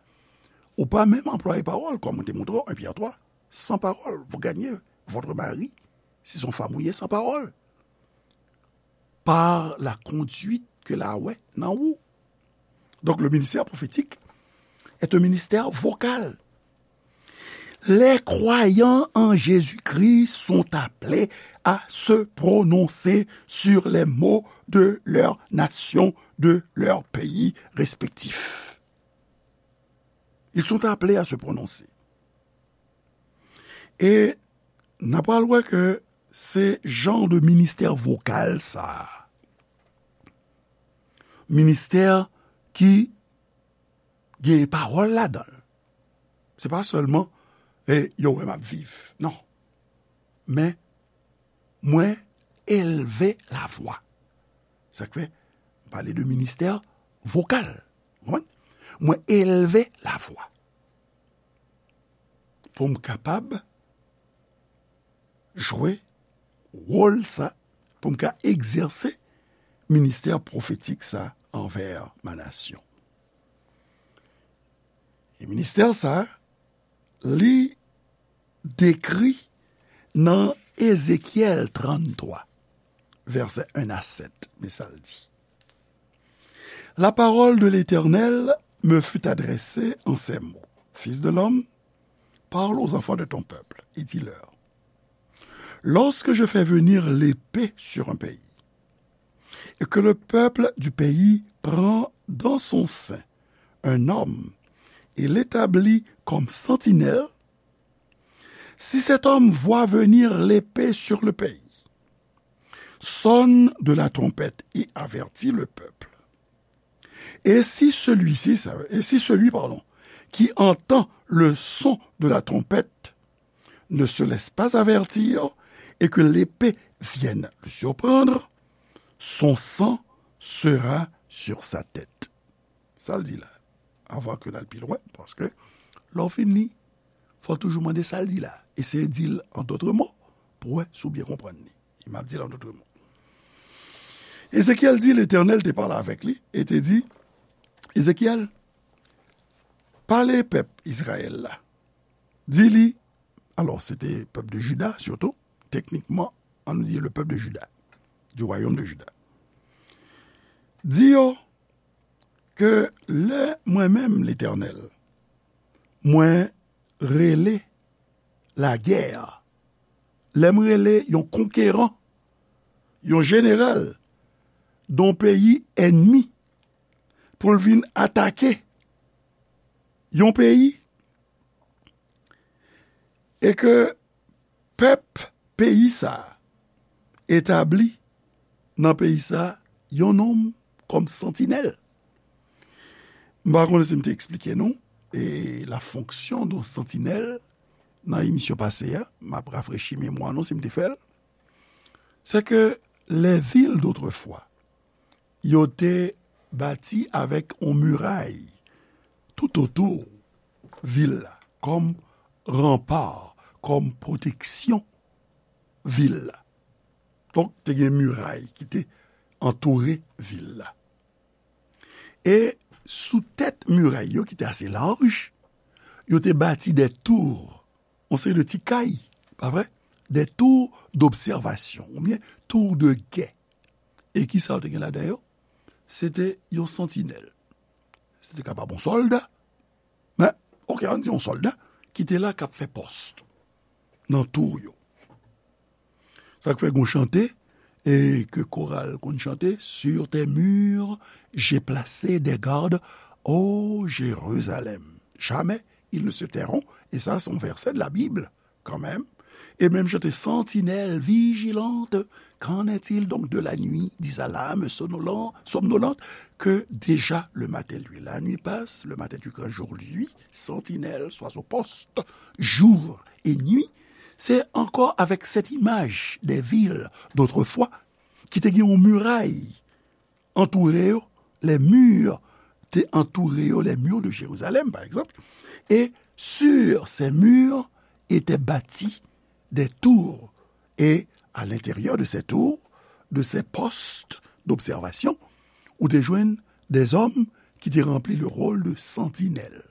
ou pa menm anplwaye pawòl, kòm mwen te montre w, un Pyè twa, sans parole, vous gagnez votre mari, si se yon fanm ou ye, sans parole. Par la conduite ke l a wè nan ou. Donc, le ministère prophétique est un ministère vocal. Les croyants en Jésus-Christ sont appelés à se prononcer sur les maux de leur nation, de leur pays respectif. Ils sont appelés à se prononcer. E n a pral wè ke se jan de ministè vokal sa a. Ministè ki gen pawòl ladan l. Se pa sèlman, e, yo wè m ap viv. Non. Men, mwen elve lavwa. Sa k fè, m pale de ministè vokal. Ou konprann? Mwen elve lavwa. Pou m kapab jwe wòl sa, pou m ka egzèse ministè pwofetik sa anvè ma nasyon. E ministè sa, li dekri nan Ezekyèl tranntwa, vèsè en a sèt, men sa l di. La parole de l'Éternel me fut adressée en ces mots. Fils de l'homme, parle aux enfants de ton peuple et dis-leur, lorsque je fais venir l'épée sur un pays, et que le peuple du pays prend dans son sein un homme et l'établit comme sentinelle, si cet homme voit venir l'épée sur le pays, sonne de la trompette et avertit le peuple. Et si celui-ci, ça- et si celui, pardon, qui entend le son de la trompette ne se laisse pas avertir et que l'épée vienne le surprendre, son sang sera sur sa tête. Sa l di la, avan ke l al pi lwen, paske lè w fin li, fò w toujou mande sa l di la. Eseye di l an dòt mo, pou wè si w byen konprann li. E m ap di l an dòt mo. Ezekyèl di, Letènèl te pale avèk li e te di, Ezekyèl, pale pèp Izrayèl la. Di li, alò, se te pèp de Jida, sitou, teknikman, ann di le peuple de Juda, du royaume de Juda. Di yo ke lè mwen menm, Letènèl, mwen rele lagè, lè m rele yon konkeran, yon jeneral, yon peyi ènmi, pou l vin atake yon peyi, e ke pèp peyi sa a etabli nan peyi sa a yon nonm kòm santinèl. M pa konnen si m te eksplike nou, e, la fonction d'un sentinelle nan emisyon pase a, m ap rafrechi memwa nou si m te fè l. C'est que les villes d'autrefois, yo te bati avèk yon miray tout otou vil la, kòm ranpa, kòm pwoteksyon vil la. Donk, te gen miray ki te antoure vil la. E sou tèt miray yo, ki te ase laj, yo te bati de tou, yon seri de ti kay, pa vre? De tou dobsèvasyon, oubyen tou de gè. E ki sa yo te gen ladan yo? Se te yon santinèl. Se te kapab yon sòlda, men, oke, ann di yon sòlda ki te la k ap fè pòs nan tou yo. Sa k fè gon chante, e ke koral konn chante, sur tes murs, j'ai placé des gardes, ô Jérusalem. Jamais ils ne se tairont. E sa, se yon vèsè de la Bib, kanmenm. E menm chante, sentinelle vigilante, qu'en est-il donc de la nuit? Dis à l'âme somnolente, somnolente que déjà le matin lui. La nuit passe, le matin du grand jour lui, sentinelle, sois au poste, jour et nuit. Se ankò avèk cette image des villes d'autrefois ki te gen yon miray antoure yo, les murs te antoure yo, les murs de Jérusalem, par exemple, et sur ces murs étaient bâtis des tours, et à l'intérieur de ces tours, de ces postes d'observation, ou te jwenn des hommes ki te ranpli le rôle de sentinelle.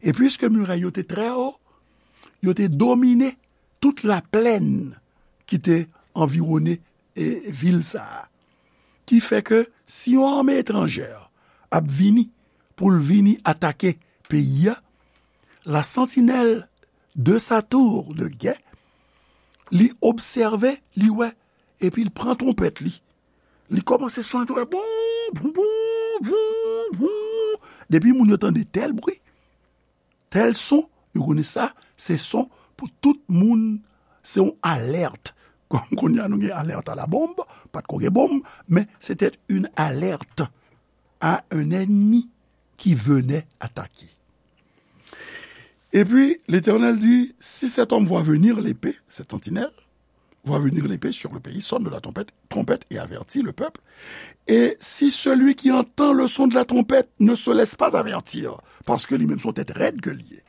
E piske miray yo te trè wo, yo te domine tout laplèn ki te anviwone, e, vil sa a. Ki fè ke si yon ame etranjè ap vini pou l vini atake peyi a, la sentinelle de sa tour de guet, li obsève, li wè, epi l pran twonpèt li. Li kòmanse sone twonpèt, boum, boum, boum, boum, boum. Depi moun yo tande tèl bri, tèl son, yo konnen sa, se son pou tout moun, se yon alèt. Kòm kounye a nou gen alèt a la bombe, pa t ko gen bonm, men se te yon alèt a yon ènmi ki venait attaquer. Et puis, l'Éternel dit, si cet homme voit venir l'épée, cette sentinelle, voit venir l'épée sur le pays, sonne de la trompette, trompette et avertit le peuple. Et si celui qui entend le son de la trompette ne se laisse pas avertir, paske li menm se yon tèt rèd ke li ye,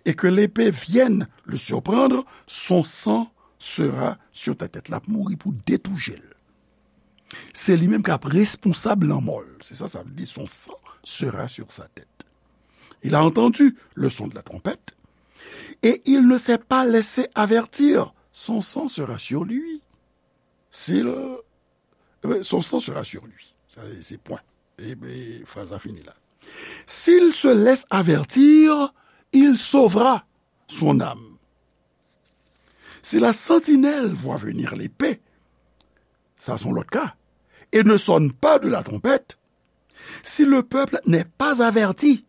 et que l'épée vienne le surprendre, son sang sera sur ta tête. L ap mouri pou de tou je l. Se li menm k ap responsab lanmò l. Se sa sa vle di, son sang sera sur sa tête. Il a entendu le son de la trompette, et il ne s'est pas laissé avertir, son sang sera sur lui. S'il, eh ben, son sang sera sur lui. Sa, se pwen. E, e fraz la fini la. S'il se laisse avertir, il sauvera son âme. Si la sentinelle voit venir l'épée, ça c'est l'autre cas, et ne sonne pas de la trompette, si le peuple n'est pas averti,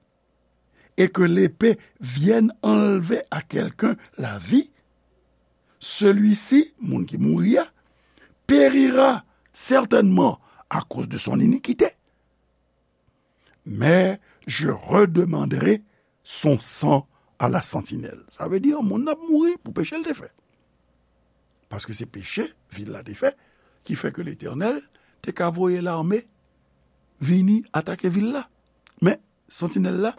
et que l'épée vienne enlever à quelqu'un la vie, celui-ci, moun ki mouri a, périra certainement à cause de son iniquité. Mais je redemanderai son sang à la sentinelle. Sa vle di, moun nan ap mouri pou peche l te fè. Paske se peche vil la te fè, ki fè ke Letènèl te ka voye lame vini atake vil la. Men, santinèl la,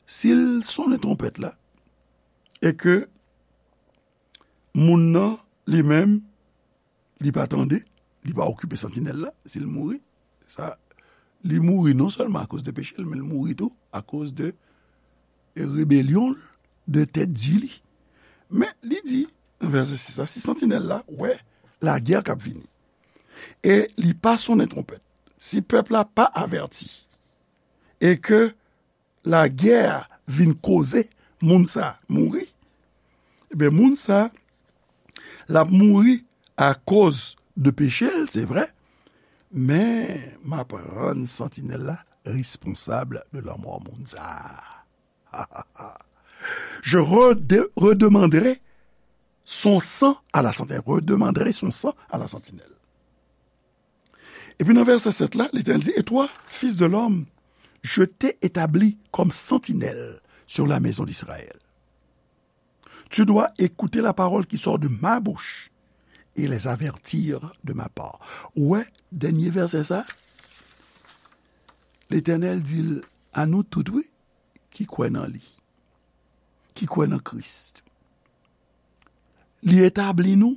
si l sonnen twonpèt la, e ke moun nan, li menm, li pa tande, li pa okipe santinèl la, si l mouri, sa, li mouri non sèlman akoz de peche l, men l mouri tou akoz de rebelyon l, de tèt di li. Men, li di, nan vèsè sis la, si santinèl la wè lagè k ap vini, e li pa sonnen twonpèt, si pèp la pa avèti, e ke lagè a vin koze moun sa a mouri, ebyen, moun sa a, l ap mouri akoz de peche l, se vre, men m ap rann santinèl la responsab de lanmò moun sa a. Je rede-, redemanderai son sang à la sentinelle. Redemanderai son sang à la sentinelle. Epi nan vèsè sèt la, Letènèl di, et toi, fils de l'homme, je t'ai établi comme sentinelle sur la maison d'Israël. Tu dois écouter la parole qui sort de ma bouche et les avertir de ma part. Ou wè, dènye vèsè sa, Letènèl di l a nou tout, wi, ki kwè nan li, ki kwè nan Kris. Li etabli nou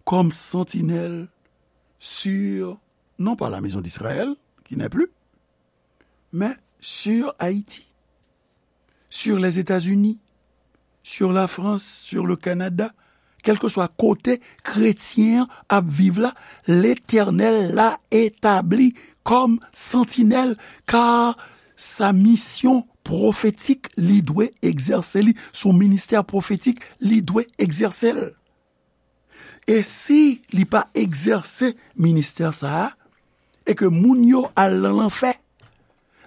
kòm santinèl sur, non pas la maison d'Israël, qui n'est plus, mais sur Haïti, sur les États-Unis, sur la France, sur le Canada, kèlkeswa kote kretyen an ap viv la, Letènèl la etabli kòm santinèl, kar sa misyon pwofetik li dwe egzèse li, son ministè pwofetik li dwe egzèse l. E si li pa egzèse ministè sa a, e ke moun yo al nan lanfè,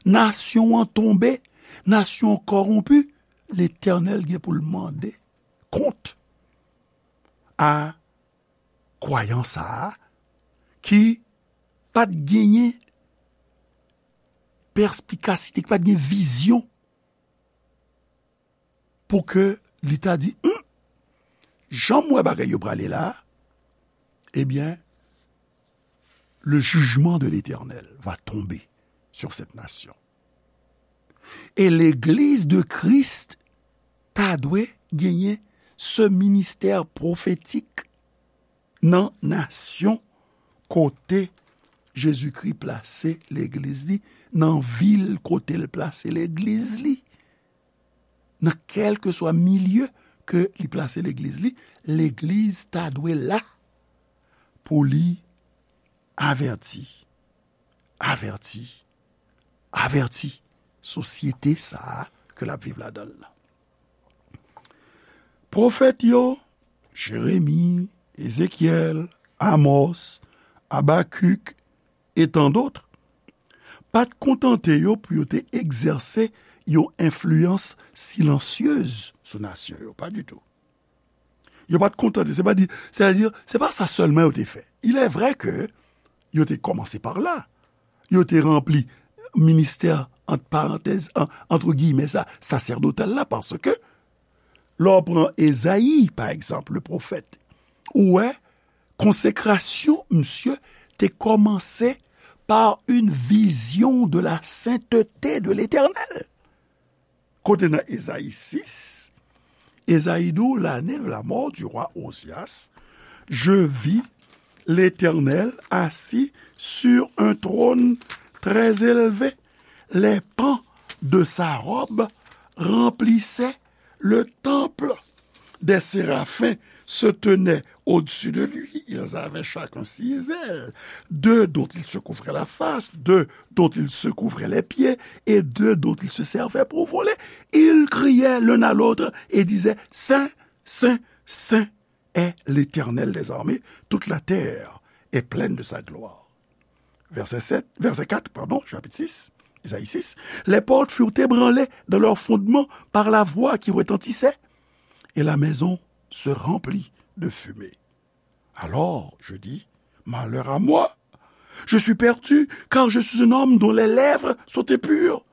nasyon an tonbe, nasyon an kòwonpi, Letènèl gen pou l mande kont a kwayan sa a ki pa t genyen pèspikasite, ki pa t gen vizyon pou ke li ta di, hmm, jan m wè bagay yo prale la, ebyen, le jugement de l'Éternel va tomber sur cette nation. E legliz de Kris ta dwe genyen se ministè pwofetik nan nasyon kote Jezikri plase legliz li, nan vil kote l plase legliz li. Nan kèlkeswa milye ke li plase legliz li, legliz ta dwe la pou li avèti, avèti, avèti sosyete sa a ke l ap viv ladan l lan. Pwofèt yo, Jeremi, Ezekyèl, Amòs, Abakik, e tandòt, pa t kontante yo pou yo te egzèse yon enfliyans silansyez sou nasyon yo, pa ditou. Yo pa t kontante, se pa di, sètadi, se pa sa sèlman yo te fè. Il est vrai que yo te kòmanse pa la. Yo te ranpli ministè, ant parantèz, an, antre giyimè sa, sasèdotal la, paske lè w pran Ezayi, pa egzanp, le pwofèt, ou wè, konsekrasyon misye te kòmanse par une vision de la sainteté de l'Éternel. Kote nan Ezayi sis, Ezayi di w, l'année de la mort du roi Ozias, je vis l'Éternel assis sur un trône très élevé. Les pans de sa robe remplissait le temple. Des séraphins se tenaient au-dessus de lui. Ils avaient chacun six ailes, deux dont ils se couvraient la face, deux dont ils se couvraient les pieds, et deux dont ils se servaient pour voler. Ils criaient l'un à l'autre et disaient : « Saint, saint, saint est l'Éternel des armées, toute la terre est pleine de sa gloire. » Verset sept, verset quatre, pardon, chapitre six, Isaïe six. Les portes furent ébranlées dans leurs fondements par la voix qui retentissait, et la maison se remplit de fumée. Alors, je dis : « Malheur à moi ! Je suis perdu, car je suis un homme dont les lèvres sont impures.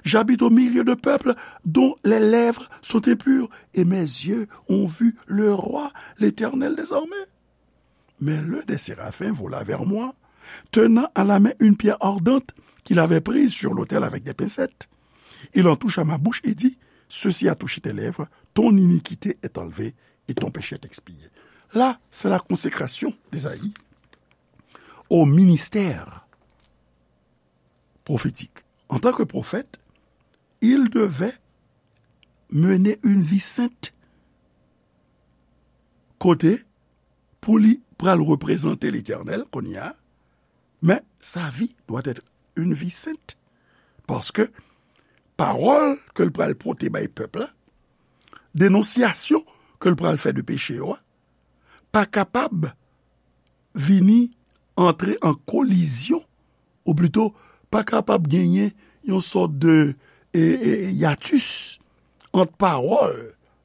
J'habite au milieu de peuples dont les lèvres sont impures, et mes yeux ont vu le roi, l'Éternel des armées. » Mais l'un des séraphins vola vers moi, tenant à la main une pierre ardente qu'il avait prise sur l'autel avec des pincettes. Il en toucha ma bouche et dit : « Ceci a touché tes lèvres, ton iniquité est enlevée et ton péché est expié. » Là, c'est la consécration d'Ésaïe au ministère prophétique. En tant que prophète, il devait mener une vie sainte. Kote, pou li pral reprezante Letènèl kounye a, men sa vi dwa èt yon vi sent. Paske pawòl ke l pral pote bay pèp la, denonsyasyon ke l pral fè de peche yo a, pa kapab vini antre an kolizyon, ou plito pa kapab genyen yon sòt de, e, e, yatis ant pawòl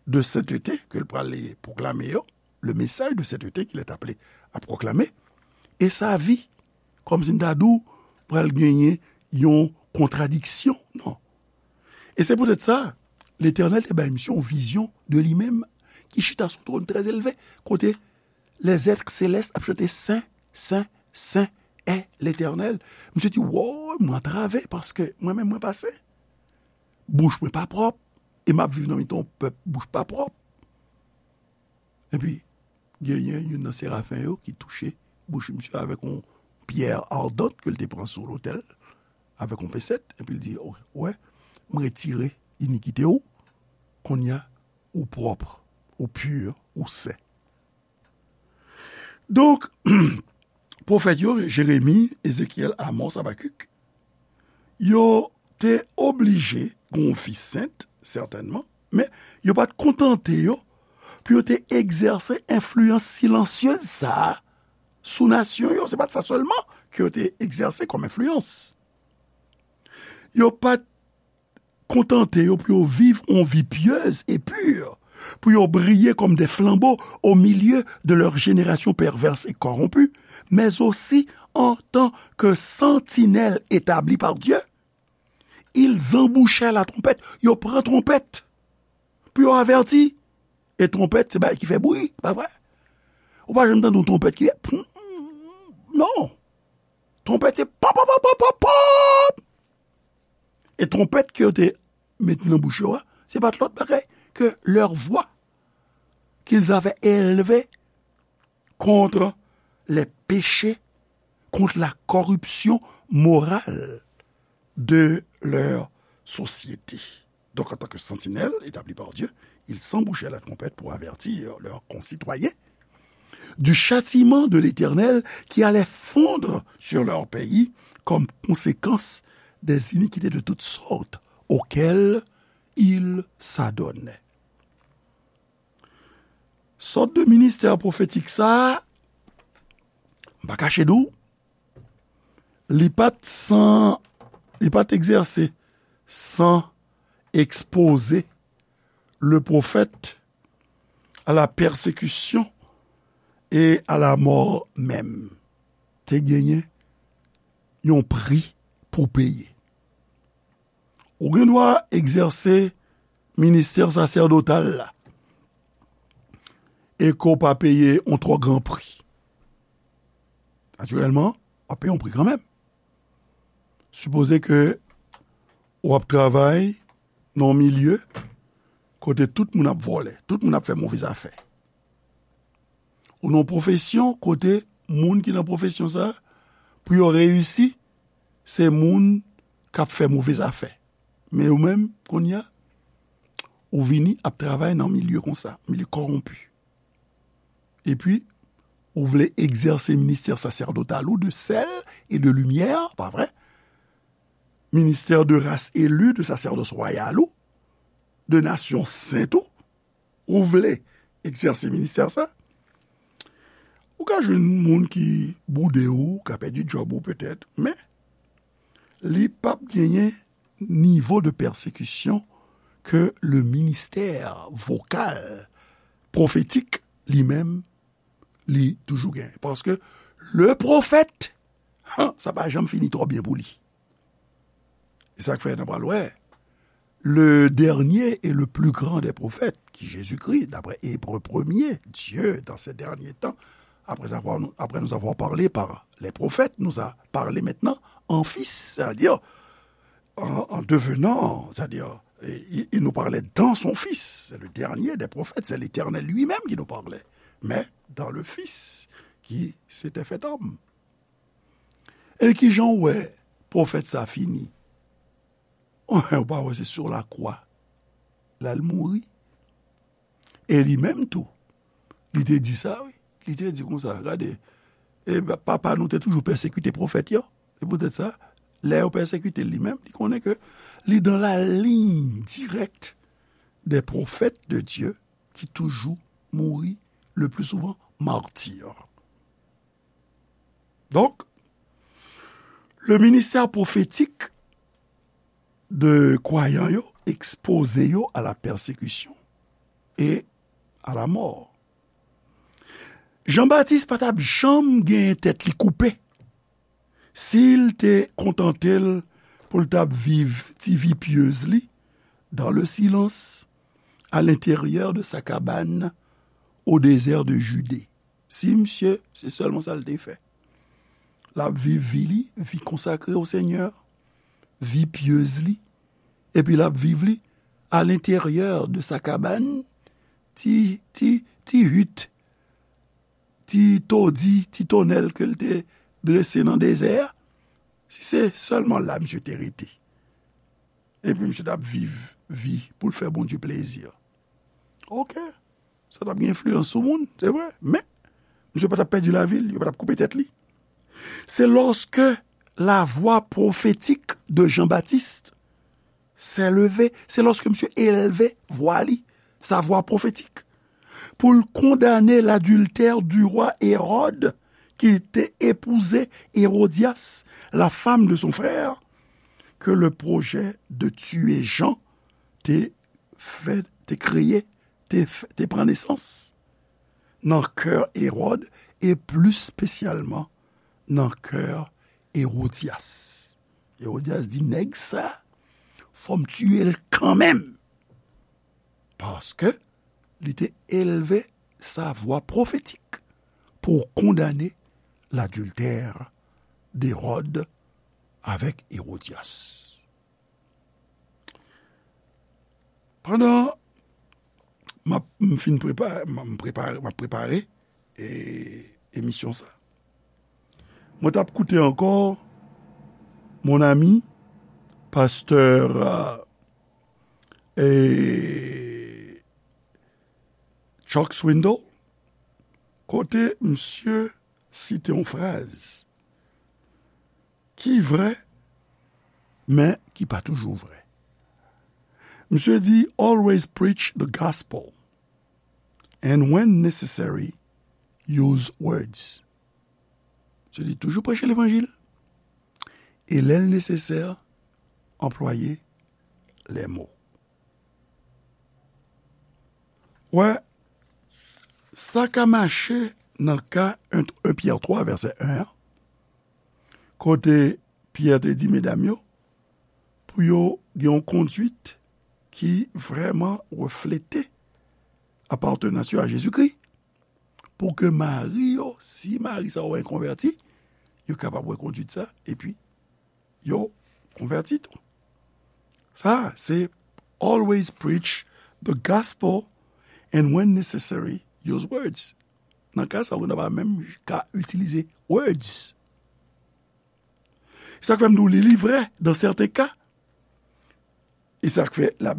de sentete ke l pral pwoklame yo, le message de sainteté qu'il est appelé à proclamer, e sa vi, kòmsi m ta di w, pral genyen yon kontradiksyon. Non. E se poutèt sa, Letènèl te bay misye yon vizyon de li menm ki chita sou yon twòn trè elve, kote les êtres célestes ap chante : « Sen, sen, sen è Letènèl. » Misye di : « Woy, mwen antrave, paske mwen menm mwen pa sen. Bouch mwen pa pwòp, e m ap viv nan mitan yon pèp bouch pa pwòp. » Epi, genyen youn nan serafen yo ki touche bouch misye avèk yon pyè ardant ke l te pran sou lotèl, avèk yon pensèt, epi l di : « Ou wè, m retire inikite w, kounye a, ou pwòp, ou pi, ou sen. » Donk, pwofèt yo, Jeremi, Ezekyèl, Amòs, Abakik, yo te oblije gen yon vi sent, sètènman, men yo pa t kontante yo pou yo te egzèse enfliyans silansyez sa a sou nasyon yo. Se pa t sa sèlman ke yo te egzèse kòm enfliyans. Yo pa t kontante yo pou yo viv yon vi pyez e pi, pou yo briye kòm de flanbo au milieu de leur génération perverse et corrompue, mais aussi en tant que sentinelles établies par Dieu, ils embouchaient la trompette. Yo pran twonpèt pou yo avèti. E twonpèt, se bagay ki fè bri, pa vre? Ou pa janm tande yon twonpèt ki fè pum, non. Twonpèt, se pop, pop, pop, pop, pop, pop. E twonpèt ke yo te met nan bouch yo a, se pa t lòt bagay ke leur voix qu'ils avaient élevée contre les péchés, contre la corruption morale de leur société. Donc, en tant que sentinelles établies par Dieu, ils s'embouchaient la trompette pour avertir leurs concitoyens du châtiment de l'Éternel qui allait fondre sur leur pays comme conséquence des iniquités de toutes sortes auxquelles ils s'adonnaient. Sòt de ministè pwofetik sa a, m pa kache di w, li pa t san, li pa t egzèse san ekspoze le prophète à la persécution et à la mort même. Te genyen yon pri pou peye. Ou gen dwa egzèse ministè sasèdotal la e ke w pa peye yon twò gran pri. Natirèlman, w ap peye yon pri kanmenm. Sipoze ke w ap travay nan yon milye kote tout moun ap vòlè, tout moun ap fè move zafè. Ou nan yon pwofesyon kote moun ki nan pwofesyon sa a, pou yo reyisi, se moun k ap fè move zafè. Men ou menm, kounye a, ou vini ap travay nan milye konsa, milye kòwonpi. Epi, ou vle egzèse ministè saserdotal ou de sèl e de limyè, pa vre? Ministè de ras eli, de sasèdòs wayal ou, de nasyon sent ou, ou vle egzèse ministè sa, ou ka jwenn moun ki boude ou, ka pèdi djòb ou petèt, men li p ap genyen nivo de pèsekisyon ke le ministè vokal pwofetik li menm li toujou genyen. Paske le pwofèt, sa pa janm fini twò byen pou li. E sa k fè n ap pral wè, le dernier et le plus grand des prophètes, ki Jezikri, daprè Ebre premye, Dieu, dans ces derniers temps, après avoir, après nous avoir parlé par les prophètes, nous a parlé maintenant en Fils, c'est-à-dire en, en devenant, c'est-à-dire, il, il nous parlait dans son Fils, c'est le dernier des prophètes, c'est l'Éternel lui-même qui nous parlait, mais dans le Fils qui s'était fait homme. E kijan w wè pwofèt sa fini? Ou pa wè se sou lakwa l al mouri? E li menm tou, li te di sa, wi. Li te di konsa, gade, e, papa nou te toujou pèsekite pwofèt yo. Se poutèt sa, lè yo pèsekite l li menm, li konnen ke li dans la ligne directe des prophètes de Dieu qui toujours mouri, le plus souvent martyr. Donk, le ministè pwofetik de kwayan yo ekspoze yo a la pèsekisyon e a la mò. Jan Batis pa t ap janm genyen tèt li koupe si l te kontante l pou l t ap viv ti vi pyez li dans le silence, à l'intérieur de sa cabane au désert de Judée. Si misye, se sèlman sa l te fè. L ap viv vi li, vi konsakre o Senyè, vi pyez li, epi l ap viv li à l'intérieur de sa cabane, ti, ti, ti hit, ti todi, ti tonèl ke l te drese nan dezè a, si se sèlman la misye te rete, epi misye t ap viv vi pou l fè Bondye plezi, oke, sa t ap gen enfliyans sou moun, se vre, men misye pa t ap pèdi lavi l, yo pa t ap koupe tèt li. C'est lorsque la voix prophétique de Jean-Baptiste s'est levée, c'est lorsque misye elve vwa li, sa vwa pwofetik, pou l kondane ladiltè du roi Hérode ki te epouze Hérodias, la femme de son frère, que le projet de tuer Jean te fè, te kreye, te, te pran nesans nan kè Ewòd, e plis espesyalman nan kè Ewodyas. Ewodyas di, "Nèg sa, fò m tiye l kanmenm." Paske li te elve sa vwa pwofetik pou kondane ladiltè d'Ewòd avèk Ewodyas. Pandan m ap, m fin prepare, m, m prepare, m ap prepare, e, emisyon sa, mwen t ap koute ankò mon ami, pastè, e, Chuck Swindoll, kote misye site yon fraz ki vrè, men ki pa toujou vrè. Misye di, "Always preach the gospel, and when necessary, use words." Misye di, "Toujou preche levanjil, e lè l nesesè, anplwaye lè mo." Wè, sa ka mache nan ka en, en Pyè twa, vèsè en an, kote Pyè te di medam yo pou yo gen yon konduit ki vrèman reflete apatenans yo a Jezikri, pou ke mari yo, si mari sa yo konvèti, yo kapab wè konduit sa, epi yo konvèti tou. Sa, se "Always preach the gospel, and when necessary, use words." Nan ka sa, ou pa menm ka itilize words. Sa k fè m di w li, li vrè, dans certains cas. E sa k fè l ap